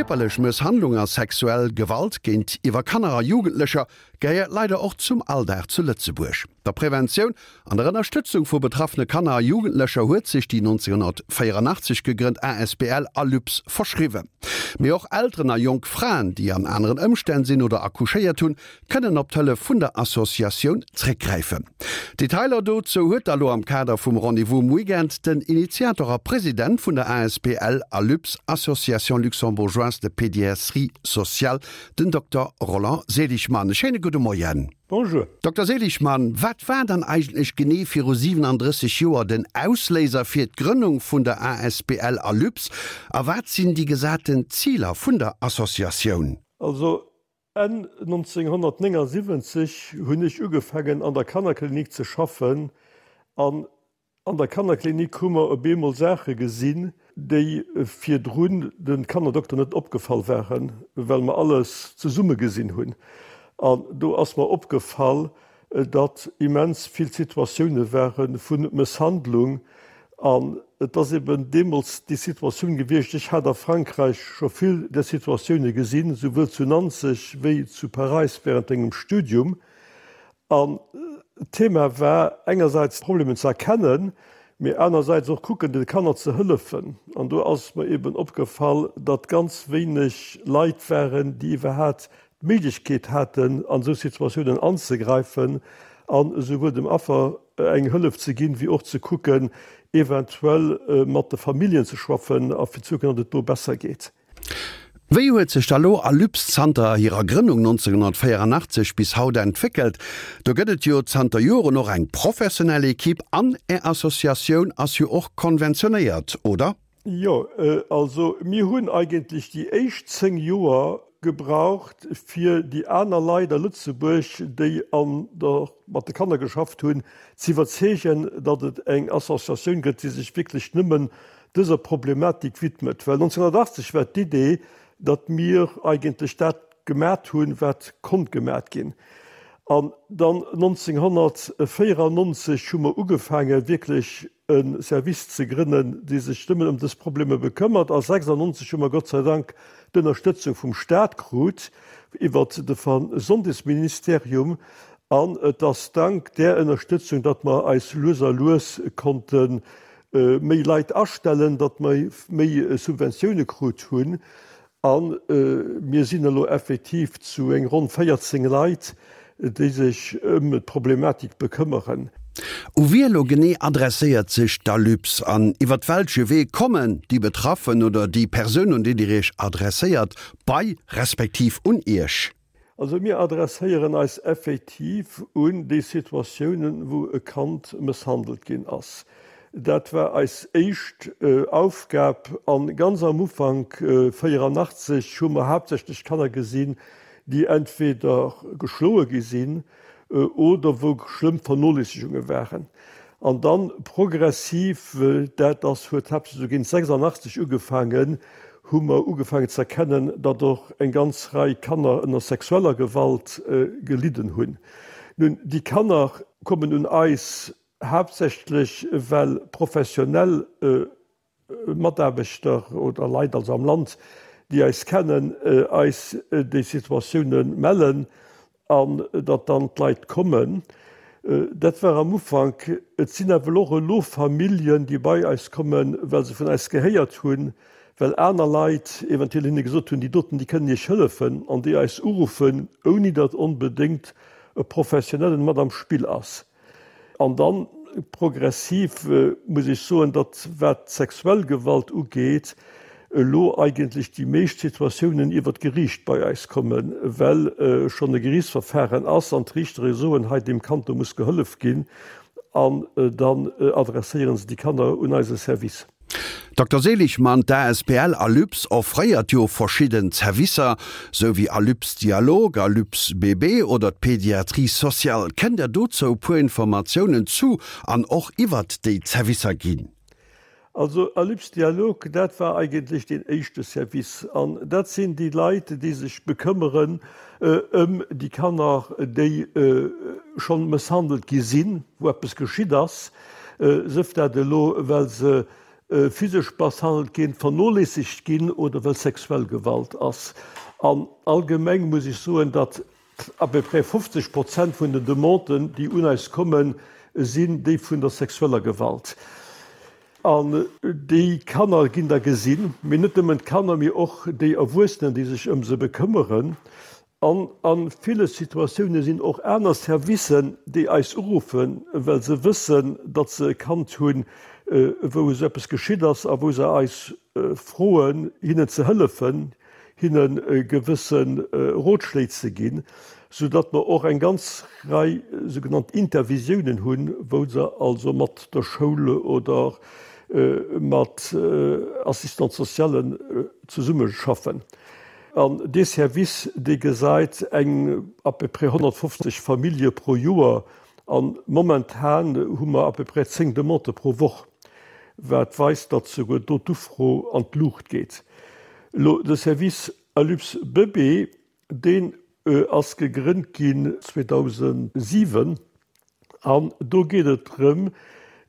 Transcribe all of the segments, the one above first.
Kierperlech Mësshandlung a sexuell Gewalt géintiwwer Kanner a Jugendlecher gehéiert leider och zum Alldag zu Lëtzebuerg. Der Preventioun an der Ënnerstëtzung vu betraffene Kanner a Jugendlecher huet sech déi 1984 gegrënnt asbl Alyps verschriwwen. Mee och Elteren a jonk Fraen, déi an aneren Ëmstänn sinn oder accouchéiert hunn, kënnen op d'Hëllef vun der Associatioun zréckgräifen. Detailer dozou huet da lo am Kader vum Rendez-vous um Weekend den Initiator a President vun der asbl Alyps, Association Luxembourgeoise de Pédiatrie Sociale, den Dokter Roland Seligmann. E schéine gudde Moien. Bonjour. Dokter Seligmann, wat war dann eigentlech genee viru 37 Joer den Ausléiser fir d'Grënnung vun der asbl Alyps a wat sinn déi gesaten Ziler vun der Associatioun? Also Enn 1979 hunn ech ugefaangen an der Kannerklinik ze schaffen an an der Kannerklinik hu mer op eemol Saache gesinn, déi virdrun de Kannerdokter net opgefall waren, well mer alles zesumme gesinn hunn. An do ass mer opgefall, datt immens vill Situatioune ware vu Mësshandlung an et ass eben deemools déi Situatioun gewiescht, ech hat a Frankräich scho vill där Situatioune gesinn, souwuel zu Nanzeg wéi zu Paräis während engem Studium. An d'Thema war engersäits d'Problemen ze erkennen, mee anersäits och kucken de Kanner ze hëllefen. An do ass mer eben opgefall, datt ganz wéineg Leit waren, déi iwwerhat d'Méiglechkeet haten, an esou Situatiounen anzegräifen an esouwuel dem Affer eng Hëllef ze ginn, wéi och ze kucken, eventuell mat de Familljen ze schwaffen a fir ze kucken, datt et do besser geet. Wéi huet sech da lo Alyps zanter hirer Grënnung 1984 bis haut entwéckelt? Do gëtt et jo zanter Joren och eng professionell Equipe an Är Associatioun ass jo och konventionéiert, oder? Jo, also mir hunn eigentlech déi éischt 10 Joer gebraucht, fir déi aner Leit a Lëtzebuerg, déi an der, mat de Kanner geschafft hunn, ze iwwerzeegen, datt et eng Associatioun gëtt, déi sech wierklech nëmmen dëser Problematik widmet. Well 1980 war d'Idee, datt mir eigentlech dat gemat hunn, wat konnt gemat ginn. An dann 1994 hu mer ugefaange wierklech e Service ze grënnen, dee sech nëmmen ëm dës Problemer bekëmmert. A 96 hu mer Gott sei Dank d'Ënnerstëtzung vum Stat krut iwwert de Gesondheetsministerium. An et ass dank där Ënnerstëtzung, datt mer eis lues a lues konnte méi Leit astellen, datt mer méi Subventioune krut hunn. A mir sinn elo effektiv zu eng ronn 14 Leit, déi sech ëm d'Problematik bekëmmeren. U wie elo genee adresséiert sech d'Alyps an iwwert welche Wee kommen déi Betraffen oder déi Persounen, un déi Dir Iech adresséiert, bei respektiv un Iech? Also mir adresséieren eis effektiv un déi Situatiounen, wou e Kand mësshandelt ginn ass. Dat war eis éischt Aufgab. A ganz am Ufank, 84, hu mer haaptsächlech Kanner gesinn, déi entweder geschloe gi sinn oder wou schlëmm Vernoléissegunge waren. An dann progressiv, dat ass, huet haaptsächlech esou géint 86 ugefaangen, hu mer ugefaangen ze erkennen, datt och eng ganz Rei Kanner ënner sexueller Gewalt gelidden hunn. Nun, déi Kanner kommen un eis haaptsächlech, well professionell Mataarbechter oder Leit also am Land, déi eis kennen, eis déi Situatioune mellen an datt dann d'Leit kommen. Dat war am Ufank. Et sinn awer och elo Familljen, déi bei eis kommen, well se vun eis gehéiert hunn, well aner Leit eventuell hinne gesot hunn, déi doten, déi kënnen Iech hëllefen, an déi eis uruffen, ouni datt onbedéngt e Professionellen mat am Spill ass. An dann progressiv muss ech soen, datt wat d'sexuell Gewalt ugeet, elo eigentlech déi meescht Situatiounen iwwert d'Geriicht bei eis kommen, well schonn e Geriichtsverfahren ass an d'Riichtere soen, hei deem Kand do muss gehollef ginn, an dann adresséiere se déi Kanner un eise Service. Dokter Seligmann, D'ASBL Alyps offréiert jo verschidden Zerwisser, sou wéi Alyps Dialog, Alyps Bébé oder d'Pédiatrie sociale. Kënnt Der dozou e puer Informatiounen zu an och iwwert déi Zerwisser ginn? Also Alyps Dialog, dat war eigentlech deen éischte Service. An dat sinn déi Leit, déi sech bekëmmeren ëm déi Kanner, déi schonn mësshandelt gi sinn, wou eppes geschitt ass. Sëf dat elo, well se. physesch misshandelt ginn, vernoléissegt ginn oder well sexuell Gewalt ass. An allgemeng muss ech soen, datt à peu près 50 Prozent vun den Demanden, déi un eis kommen, sinn déi vun der sexueller Gewalt. An déi Kanner ginn da gesinn, mee net nëmmen d'Kanner, mee och déi Erwuessenen, déi sech ëm se bekëmmeren. An a ville Situatioune sinn och aner Servicen, déi eis uruffen, well se wëssen, datt se e Kand hunn, wou esou eppes geschitt ass a wou se eis froen, hinnen ze hëllefen, hinne gewësse Rotschléi ze ginn, soudatt mer och eng ganz Rei sougenannt Intervisiounen hunn, wou se also mat der Schoul oder mat Assistants-socialen zesummeschaffen. An dee Service, dee gesäit eng à peu près 150 Famillje pro Joer. A momentan hu mer à peu près 10 Demandë pro Woch, wat weist, datt souguer do d'Ufro an d'Luucht geet. Elo de Service Alups Bëbee, deen ass gegrënnt ginn 2007 an do geet et drëm,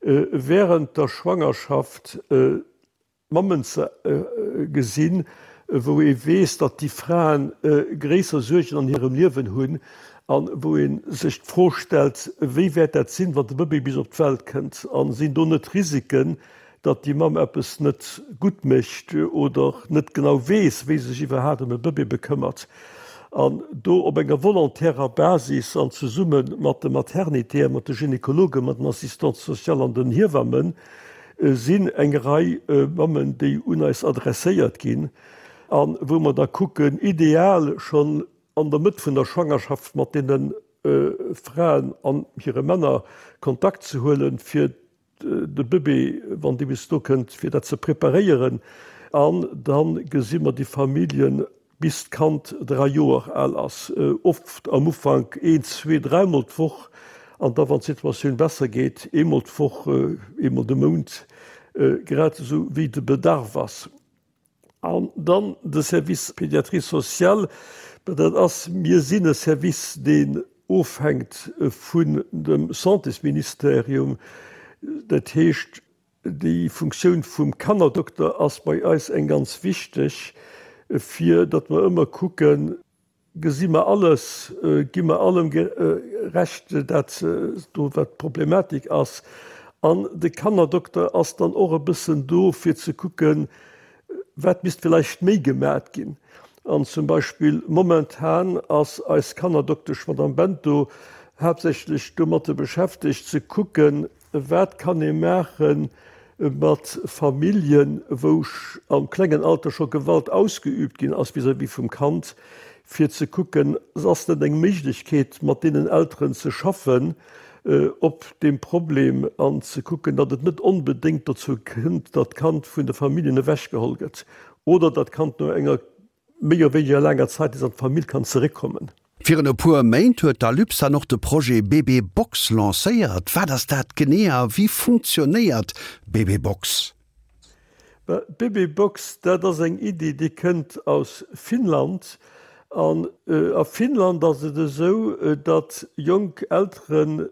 während der Schwangerschaft Mammen ze gesinn, wou ee weess, datt déi Fraen gréisser Suergen an hirem Liewen hunn a wou ee sech d'Fro stellt, wéi wäert dat sinn, wann de Bëbee bis op d'Welt kënnt a sinn do net Risiken, datt déi Mamm eppes net gutt mécht oder net genau weess, wéi se sech iwwerhaapt ëm e Bëbee bekëmmert. An do op enger volontärer Basis an zesumme mat de Maternitéen, mat de Gynekologen, mat den Assistantes sociales an den Hiewammen, sinn eng Rei Mammen, déi un eis adresséiert ginn a wou mer da kucken, ideal schonn an der Mëtt vun der Schwangerschaft mat deene Fraen an hire Männer Kontakt ze huelen, fir de Bëbee, wann dee bis do kënnt, fir dat ze preparéieren. An da gesi mer déi Familljen bis d'Kand 3 Joer al ass, oft am Ufank een, zwee, dräimol d'Woch an da wann d'Situatioun besser geet, eemol d'Woch, eemol de Mount, grad esou wéi de Bedarf ass. An dann de Service Pédiatrie sociale, dat ass, mir sinn e Service, deen ofhänkt vun dem Santésministerium, dat heescht, Déi Funktioun vum Kannerdokter ass bei eis eng ganz wichteg, fir datt mer ëmmer kucken, Gesi mer alles, gi mer allem Recht, dat do wat d'Problematik ass. An de Kannerdokter ass dann och e bëssen do fir ze kucken, wat misst villäicht méi gemat ginn. An zum Beispill momentan ass eis Kannerdoktesch Madame Bento haaptsächlech domatte beschäftegt ze kucken, Wat kann ee maache mat Familljen, wou am klengen Alter scho Gewalt ausgeüübt ginn ass vis-à-vis vum Kand, fir ze kucken, ass net eng Méiglechkeet, mat deenen Elteren ze schaffen op deem Problem an ze kucken, datt et net onbedéngt dozou kënnt, datt d'Kand vun de Familljen ewechgeholl gëtt oder datt d'Kand no enger méi oder wéiniger laanger Zäit nees an d'Famill kann zeréckkommen. Virun e puer Méint huet d'Alups dann och de Projet Bébé Box lancéiert. Wat ass dat genee a wéi funktionéiert Bébé Box? D'Bébé Box, dat ass eng Iddi, déi kënnt aus Finnland. An a Finnland ass et esou, datt jonk Elteren,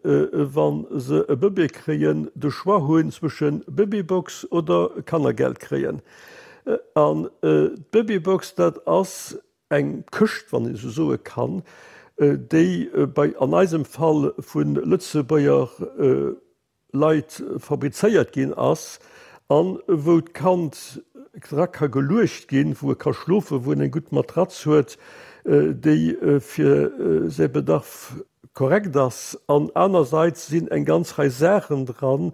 wa se e Bëbee kréien, de Choix hunn zwësche Bébé Box oder Kannergeld kréien. An d'Babybox, dat ass eng Këscht, wann een esou soe kann, déi bei, an eisem Fall, vu Lëtzebuerger Leit fabrizéiert ginn ass a wou d'Kand dra ka geluecht ginn, wou e ka schlofen, wou en eng gutt Matratz huet, déi fir säi Bedarf korrekt ass. An anerseits sinn eng ganz Rei Saachen dran,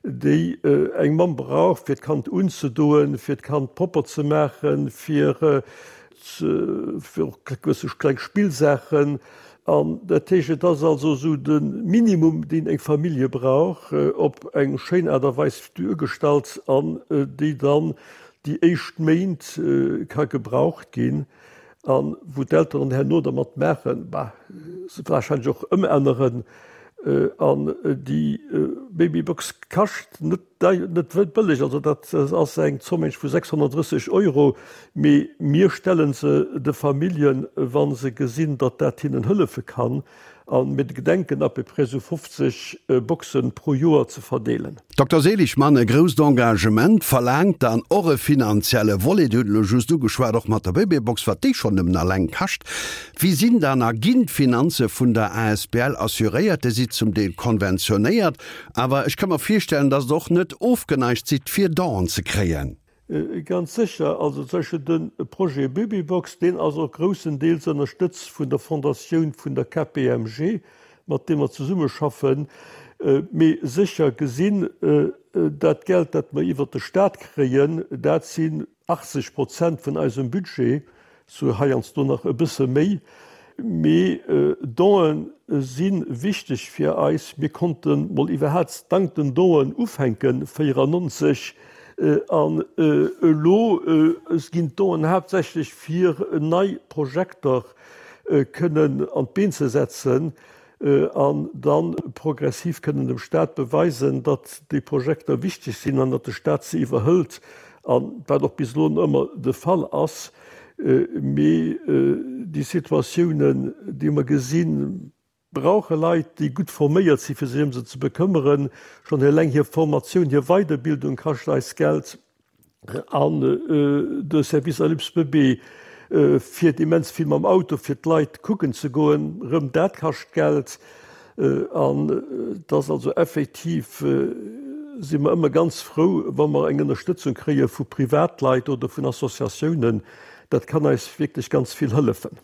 déi eng Mamm brauch, fir d'Kand unzedoen, fir d'Kand propper ze maachen, fir fir och gewësse kleng Spillsaachen. An dat heescht, et ass also esou de Minimum, deen eng Famillje brauch, op eng schéin Aart a Weis duergestallt an déi dann déi éischt Méint ka gebraucht ginn. A wou d'Elteren herno dermat maachen, bah, se wahrscheinlech och ëmänneren. An déi Babybox kascht net dei, net bëlleg, also dat ass eng Zomm vu 630 Euro, mee mir stelle se de Familljen, wa se gesinn, datt dat hinnen hëllefe kann. A mir gedenken à peu près esou 50 Boxen pro Joer ze verdeelen. Dokter Seligmann, E grousst Engagement verlaangt dann och e finanzielle Volet. Dir hutt elo just ugeschwat, och mat der Bëbeebox, wat déi schonn nëmmen alleng kascht. Wéi sinn dann a ginn d'Finanze vun der asbl assuréiert? Dir sidd zum Deel konventionéiert, awer ech ka mer virstellen, datt Der och net ofgeneigt sidd, fir Donen ze kréien. Ganz sécher. Also zum Beispill de Projet Babybox, deen ass och groussendeels ënnerstëtzt vun der Fondatioun vun der KPMG, mat deem mer zesummeschaffen. Mee sécher gesinn, dat Geld, dat mer iwwert de Stat kréien, dat sinn 80 Prozent vun eisem Budget, Sou heiansdo nach e bësse méi. Mee Don'e si wichteg fir eis. Mir konnte mol iwwerhaats dank den Don'en ufänken 94 an elo ginn d'Don'en haaptsächlech fir nei Projekter kënnen an d'Been ze setzen. An da progressiv kënnen dem Stat beweisen, datt déi Projekter wichteg sinn an datt de Stat se iwwerhëlt, a wat och bis elo ëmmer de Fall ass. Mee déi Situatiounen, déi mer gesinn, brauche Leit, déi gutt forméiert sinn, fir sech ëm se ze bekëmmeren. Schonn eleng hir Formatioun, hir Weiderbildung kascht eis Geld. An de Service Alyps Bébé fiert immens vill mam Auto fir d'Leit kucken ze goen. Rëm dat kascht Geld. An et ass also effektiv, si mer ëmmer ganz frou, wa mer eng Ënnerstëtzung kréie vu Privatleit oder vun Associatiounen. Dat kann eis wierklech ganz vill hëllefen.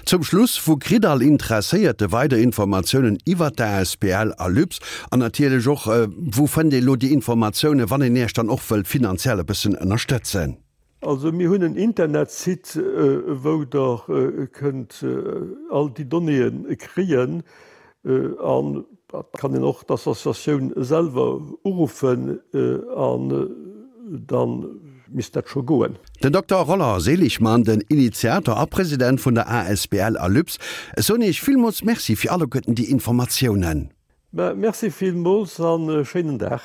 Zum Schluss, Wou kritt all Interesséierte weider Informatiounen iwwert d'ASBL Alyps? An natierlech och, wou fënnt ee lo déi Informatiounen, wann een Iech dann och wëllt finanziell e bëssen ënnerstëtzen? Also mir hunn en Internetsite, wou Der kënnt all déi Donnéeë kréien. An et kann een och d'Associatioun selwer uruffen an da misst dat scho goen. Den Dokter Roland Seligmann, den Initiator a President vun der asbl Alyps, ech soen Iech villmools Merci fir alleguerten déi Informatiounen. Merci villmools an e schéinen Dag.